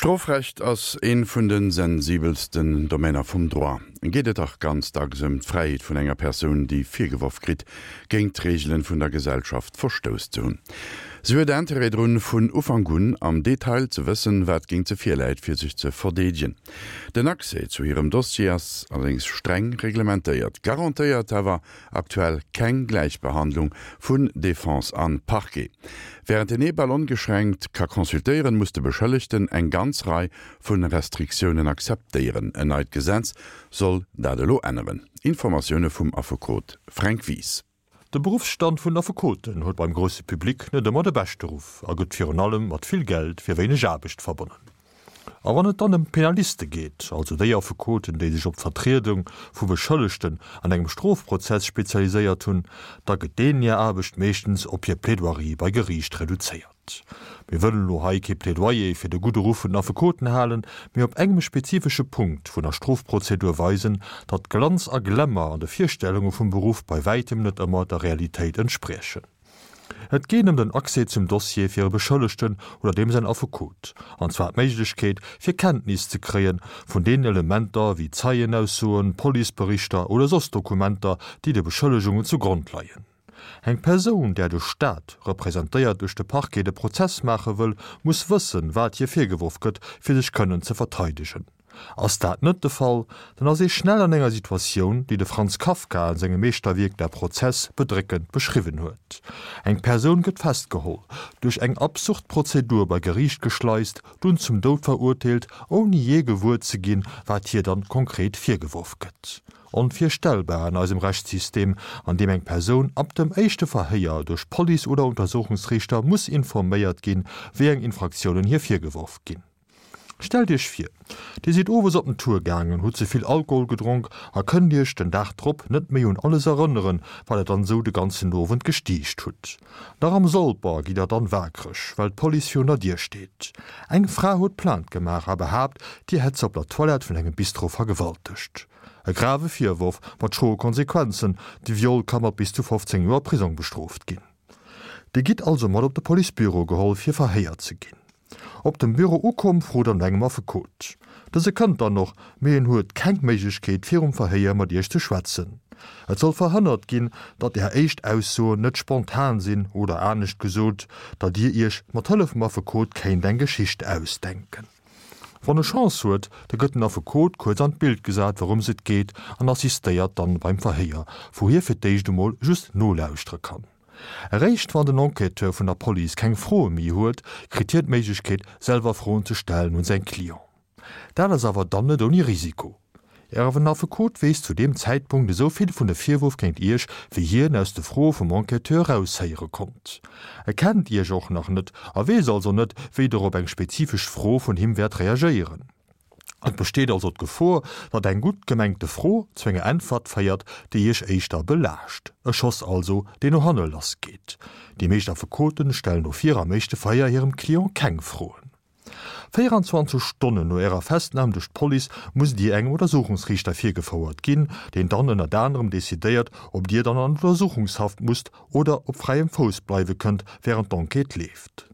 Strofrecht ass ee vun de sensibelsten Domainer vum Droit. Geet et dach ganz dacks ëm d'Fräiheet vun enger Persoun, déi virgeworf kritt, géint d'Reegelen vun der Gesellschaft verstouss ze hunn. Si huet Interêt drun, vun Ufank un am Detail ze wëssen, wat géint se virläit, fir sech ze verdeedegen. Den Accès zu hirem Dossier ass allerdéngs streng reglementéiert, garantéiert awer Aktuell keng Gläichbehandlung vun Defense an Parquet. Während den ee bal ongeschränkt ka consultéieren, muss de Beschëllegten eng ganz Rei vun Restriktiounen akzeptéieren. En neit Gesetz soll dat elo änneren. Informatioune vum Affekot Fränk Wies. De Beruffsstand vun Affekoten huet beim grousse Public net ëmmer de beschte Ruff a gëtt virun allem mat vill Geld fir wéineg Aarbecht verbonnen. A wann et dann ëm d'Penaliste geet, also déi Affekoten, déi sech op d'Vertriedung vu Beschëllegten an engem Strofprozess spezialiséiert hunn, da gëtt deenen hir Aarbecht meeschtens op hir Plaidoirie bei Geriicht reduzéiert. Mir wëllen elo hei kee Plädoyer fir de gudde Ruff vun den Affekoten halen, mee op engem spezifesche Punkt vun der Strofprozedur weisen, datt Glanz a Glamour an de Virstellunge vum Beruff bei wäitem net ëmmer der Realitéit entspriechen. Et geet ëm den Accès zum Dossier fir e Beschëllegten oder deem säin Affekot, an zwar d'Méiglechkeet, fir Kenntnis ze kréie vun deenen Elementer wéi Zeienaussoen, Policeberichter oder soss Dokumenter, déi de Beschëllegungen zu Grond leien. Eng Persoun, där de Staat, representéiert duerch de Parquet, de Prozess maache wëll, muss wëssen, wat hir virgeworf gëtt, fir sech kënnen ze verteidegen. Ass dat net de Fall, dann ass ee schnell an enger Situatioun, déi de Franz Kafka an sengem Meeschterwierk Der Prozess bedréckend beschriwwen huet. Eng Persoun gëtt festgeholl, duerch eng absurd Prozedur bei Geriicht geschleist, dunn zum Doud verurteelt, ouni jee gewuer ze ginn, wat hir dann konkret virgeworf gëtt. Onvirstellbar an eisem Rechtssystem, an deem eng Persoun ab dem éischte Verhéier duerch Police oder Untersuchungsriichter muss informéiert ginn, wéi eng Infraktiounen hir virgeworf ginn. Stellt iech vir, dir sidd owes op den Tour gaangen, hutt ze vill Alkohol gedronk a kënnt iech den Dag drop net méi un alles erënneren, wat der dann esou de ganzen Owend gestiicht hutt. Nach am Solper gitt der dann waakreg, well d'Police virun der Dier steet. Eng Fra huet Plainte gemaach a behaapt, dir hätt se op der Toilette vun engem Bistro vergewaltegt. E grave Virworf mat schroe Konsequenzen, de Viol ka mat bis zu 15 Joer Prisong bestrooft ginn. Dir gitt also mat op de Policebüro geholl fir verhéiert ze ginn. Op dem Büro ukomm, frot er no engem Affekot. Dëse kënnt dann och, mee en huet keng Méiglechkeet virum Verhéier mat iech ze schwätzen. Et soll verhënnert ginn, datt är éischt Aussoen net spontan sinn oder anescht gesot, datt dir iech mat Hëllef vum Affekot kéint eng Geschicht ausdenken. Wann e Chance huet, da gëtt den Affekot kuerz an d'Bild gesat wourëms et geet an assistéiert dann beim Verhéier, wou hie fir d'éischt emol just nolauschtere kann. Eréischt wann den Enquêteur vun der Police keng Froe méi huet, kritt hien d'Méiglechkeet, selwer Froen ze stellen un säin Client. Dat ass awer dann net ouni Risiko. Ären Affekot weess zu deem Zäitpunkt esou vill vun de Virwurf géint Iech, wéi hien aus de Froe vum Enquêteur eraushéiere konnt. E kennt Iech och nach net a weess also net, wéi Der op eng spezifesch Fro vun him wäert reagéieren. Et besteet also d'Gefor, datt eng gutt gemengte Fro zu enger Äntwert féiert, déi Iech éischter belaascht. E Schoss also, deen no hanne lass geet. Déi meescht Affekoten stellen dofir am éischte Verhéier hirem Client keng Froen. 24 Stonnen no Ärer Festnam duerch d'Police musst Dir engem Untersuchungsriichter virgefouert ginn, deen dann ënnert anerem decidéiert, ob Dir dann an Untersuchungshaft musst oder op fräiem Fouss bleiwe kënnt, wärend d'Enquête leeft.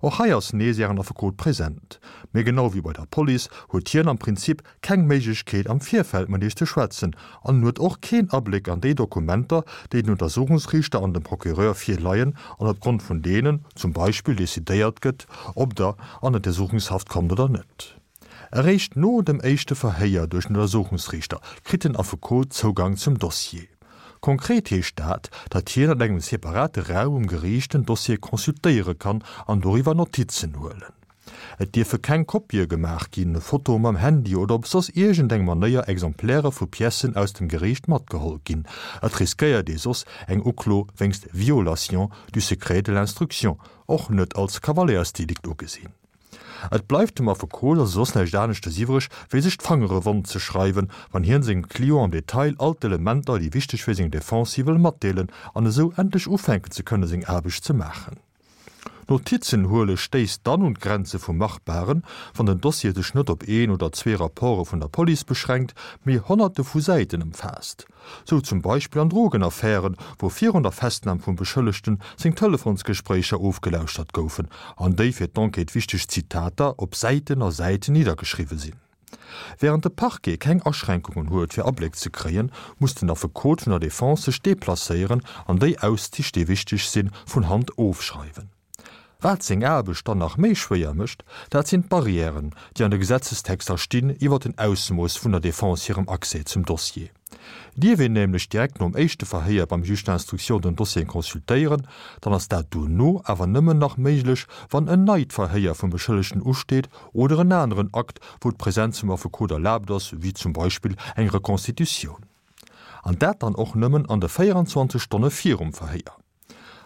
Och hei ass nees Ären Affekot present. Mee genau wéi bei der Police huet hien am Prinzip keng Méiglechkeet am Virfeld mat Iech ze schwätzen an en huet och keen Abléck an déi Dokumenter, déi den Untersuchungsriichter an dem Procureur virleien an opgrond vun deenen zum Beispill decidéiert gëtt, ob Der an Untersuchungshaft kommt oder net. Eréischt no dem éischte Verhéier duerch den Untersuchungsriichter kritt den Affekot Zougang zum Dossier. Konkret heescht dat, datt hien an engem separate Raum um Geriicht den Dossier consultéiere kann an doriwwer Notizen huelen. Et dierfe keng Kopië gemaach ginn, Fotoe mam Handy oder op soss iergendeng Manéier Exemplaire vu Piècen aus dem Geriicht matgeholl ginn. Et riskéiert ee soss eng Uklo wéinst Violation du secret de l'instruction, och net als Kavaléiersdelikt ugesinn. Et bleift dem Affekot also soss näischt aneschtes iwwreg, wéi sech d'Fangere wonn ze schreiwen, wann hien sengem Client am Detail all d'Elementer, déi wichteg fir seng Defense si wëll matdeelen an esou endlech ufänken ze kënne seng Aarbecht ze maachen. Notizen huele stéisst dann un d'Grenze vum Machbaren, wann den Dossier sech net op een oder zwee Rapporte vun der Police beschränkt, mee Honnerte vu Säiten ëmfaasst. Sou zum Beispill an Drogenaffären, wou virun der Festnam vum Beschëllegten seng Telefonsgespréicher ofgelauschtert goufen an déi fir d'Enquête wichteg Zitater op Säiten a Säiten niddergeschriwwe sinn. Wärend de Parquet keng Aschränkungen huet fir Abléck ze kréien, muss den Affekot vun der Defense sech deplacéieren an déi Auszich déi wichteg sinn, vun Hand ofschreiwen. Wat seng Aarbecht dann nach méi schwéier mécht, dat sinn d'Barrièren, déi an de Gesetzestexter stinn iwwer den Ausmooss vun der Defense hirem Accès zum Dossier. Dierf een nämlech direkt nom éischte Verhéier beim Juge d'instruction den Dossier consultéieren, dann ass dat dono awer nëmmen nach méiglech, wann en neit Verhéier vum Beschëllegten usteet oder en aneren Akt, wou d'Presenz vum Affekot erlaabt ass, wéi zum Beispill eng Reconstitutioun. An dat dann och nëmmen an de 24 Stonne virum Verhéier.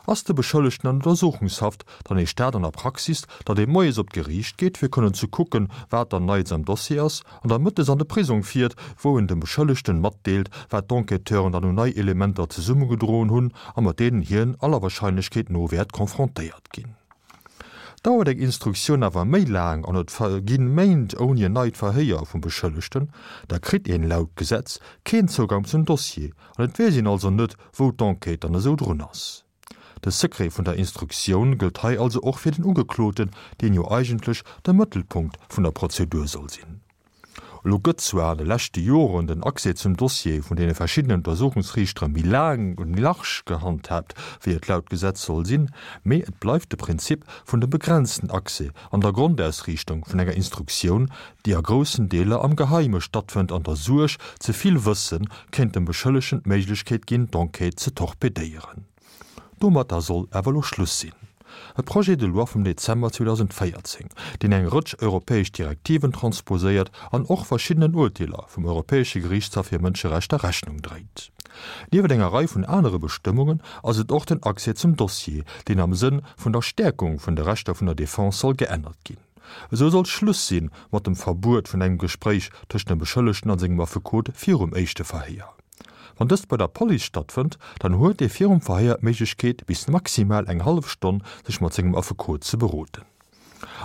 Ass de Beschëllegten an Untersuchungshaft, dann heescht dat an der Praxis, datt ee moies op d'Geriicht geet, fir kënnen ze kucken, wat dann Neits am Dossier ass, an da mëttes an de Prisong fiert, wou en dem Beschëllegten matdeelt, wat d'Enquêteuren dann un nei Elementer zesummegedroen hunn a mat deenen hien aller Wahrscheinlechkeet no wäert confrontéiert ginn. Dauert eng Instruktioun awer méi laang an et verginn Méint ouni en neit Verhéier vum Beschëllegten, da kritt een laut Gesetz keen Zougang zum Dossier an et weess een also net, wou d'Enquête dann esou drun ass. De Secret vun der Instruktioun gëllt hei also och fir den Ugekloten, deen jo eigentlech de Mëttelpunkt vun der Prozedur soll sinn. Elo gëtt zwar an de leschte Joren den Accès zum Dossier vun deene verschiddenen Untersuchungsriichtere méi laang und méi large gehandhaabt, wéi et laut Gesetz soll sinn, mee et bleift de Prinzip vun dem begrenzten Accès an der Grondausriichtung vun enger Instruktioun, déi a groussen Deeler am Geheime stattfënnt an der Suerg, ze vill Wësse kéint dem Beschëllegen d'Méiglechkeet ginn, d'Enquête ze torpedéieren. Domatter soll awer elo Schluss sinn. E Projet de loi vum Dezember 2014, deen eng Rëtsch europäesch Direktiven transposéiert an och verschiddenen Urteeler vum Europäesche Geriichtshaff fir Mënscherechter Rechnung dréit. Niewent enger Rei vun anere Bestëmmungen ass et och den Accès zum Dossier, deen am Sënn vun der Stäerkung vun de Rechter vun der Defense soll geännert ginn. Esou soll Schluss si mat dem Verbuet vun engem Gespréich tëscht dem Beschëllegten a sengem Affekot virum éischte Verhéier. Wann dëst bei der Police stattfënnt, dann huet ee virum Verhéier d'Méiglechkeet bis maximal eng hallef Stonn sech mat sengem Affekot ze beroden.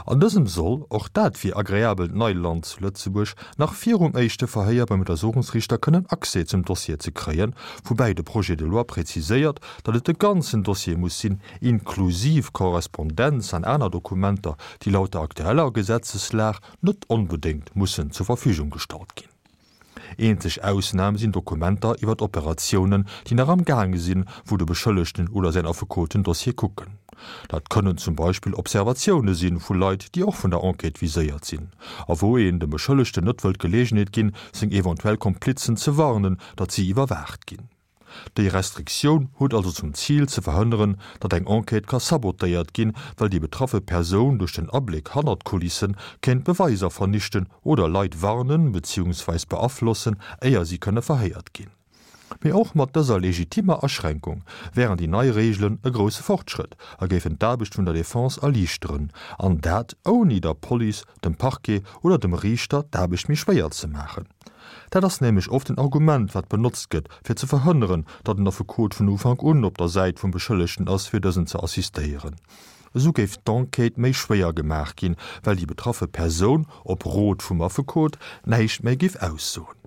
An dësem soll, och dat wier agreabelt Neiland zu Lëtzebuerg, nach virum éischte Verhéier beim Untersuchungsriichter kënnen Accès zum Dossier ze kréien, woubäi de Projet de loi präziséiert, datt et de ganzen Dossier muss sinn, inklusiv Korrespondenz an aner Dokumenter, déi laut der aktueller Gesetzeslag net onbedéngt mussen zur Verfügung gestallt ginn. Eenzeg Ausnam sinn Dokumenter iwwer Operatiounen, déi nach am gaange sinn, wou de Beschëllegten oder säin Affekot den Dossier kucken. Dat kënnen zum Beispill Observatioune si vu Leit, déi och vun der Enquête viséiert sinn, a wou een dem Beschëllegten net wëllt d'Geleegenheet ginn, seng eventuell Komplizen ze warnen, datt si iwwerwaacht ginn. Déi Restriktioun huet also zum Zil ze verhënneren, datt eng Enquête ka sabotéiert ginn, well déi betraffe Persoun duerch den Abléck hannert d'Kulissen kéint Beweiser vernichten oder Leit warnen beziehungsweis beaflossen, éier si kënne verhéiert ginn. Mee och mat dëser legitimmer Aschränkung wären déi nei Reegelen e grousse Fortschrëtt a géifen d'Aarbecht vun der Defense erliichteren, an dat ouni der Police, dem Parquet oder dem Riichter d'Aarbecht méi schwéier ze maachen. Dat ass nämlech oft en Argument, wat benotzt gëtt, fir ze verhënneren, datt en Affekot vun Ufank un op der Säit vum Beschëllegten ass, fir dësen ze assistéieren. Esou géif d'Enquête méi schwéier gemaach ginn, well déi betraffe Persoun, op Rot vum Affekot, näischt méi géif aussoen.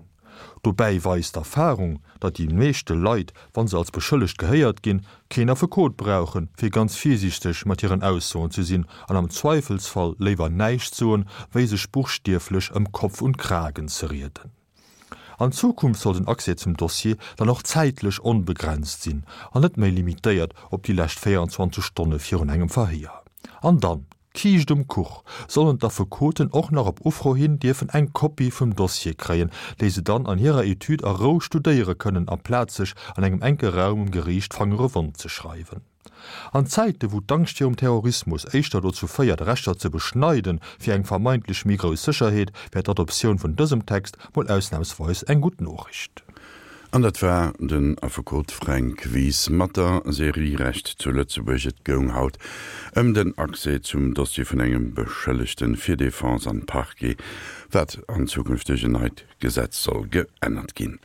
Dobäi weist d'Erfarung, datt déi meeschte Leit, wa se als beschëllegt gehéiert ginn, keen Affekot brauchen, fir ganz virsiichteg mat hiren Aussoen ze sinn an am Zweifelsfall léiwer näischt soen, wéi sech buchstieflech ëm Kopf und Kragen ze rieden. An Zukunft soll den Accès zum Dossier dann och zäitlech onbegrenzt sinn an net méi limitéiert op déi lescht 24 Stonne virun engem Verhéier. An dann, D'Kiischt um Kuch, sollen d'Affekoten och nach op Ufro hin dierfen eng Kopie vum Dossier kréien, déi se dann an hirer Etüd a Rou studéiere kënnen, amplaz sech an engem enke Raum um Geriicht d'Fangere wond ze schreiwen. An Zäite wou d'Angscht virum Terrorismus éischter dozou féiert, Rechter ze beschneiden, fir eng vermeintlech méi grouss Sécherheet, wär d'Adoptioun vun dësem Text mol ausnamsweis eng gutt Noriicht. An dat war den Affekot Fränk Wies mat der Serie Recht zu Lëtzebuerg. Et goung haut ëm den Accès zum Dossier vun engem Beschëllegten fir Defense an Parquet, wat an Zukunft duerch en neit Gesetz soll geännert ginn.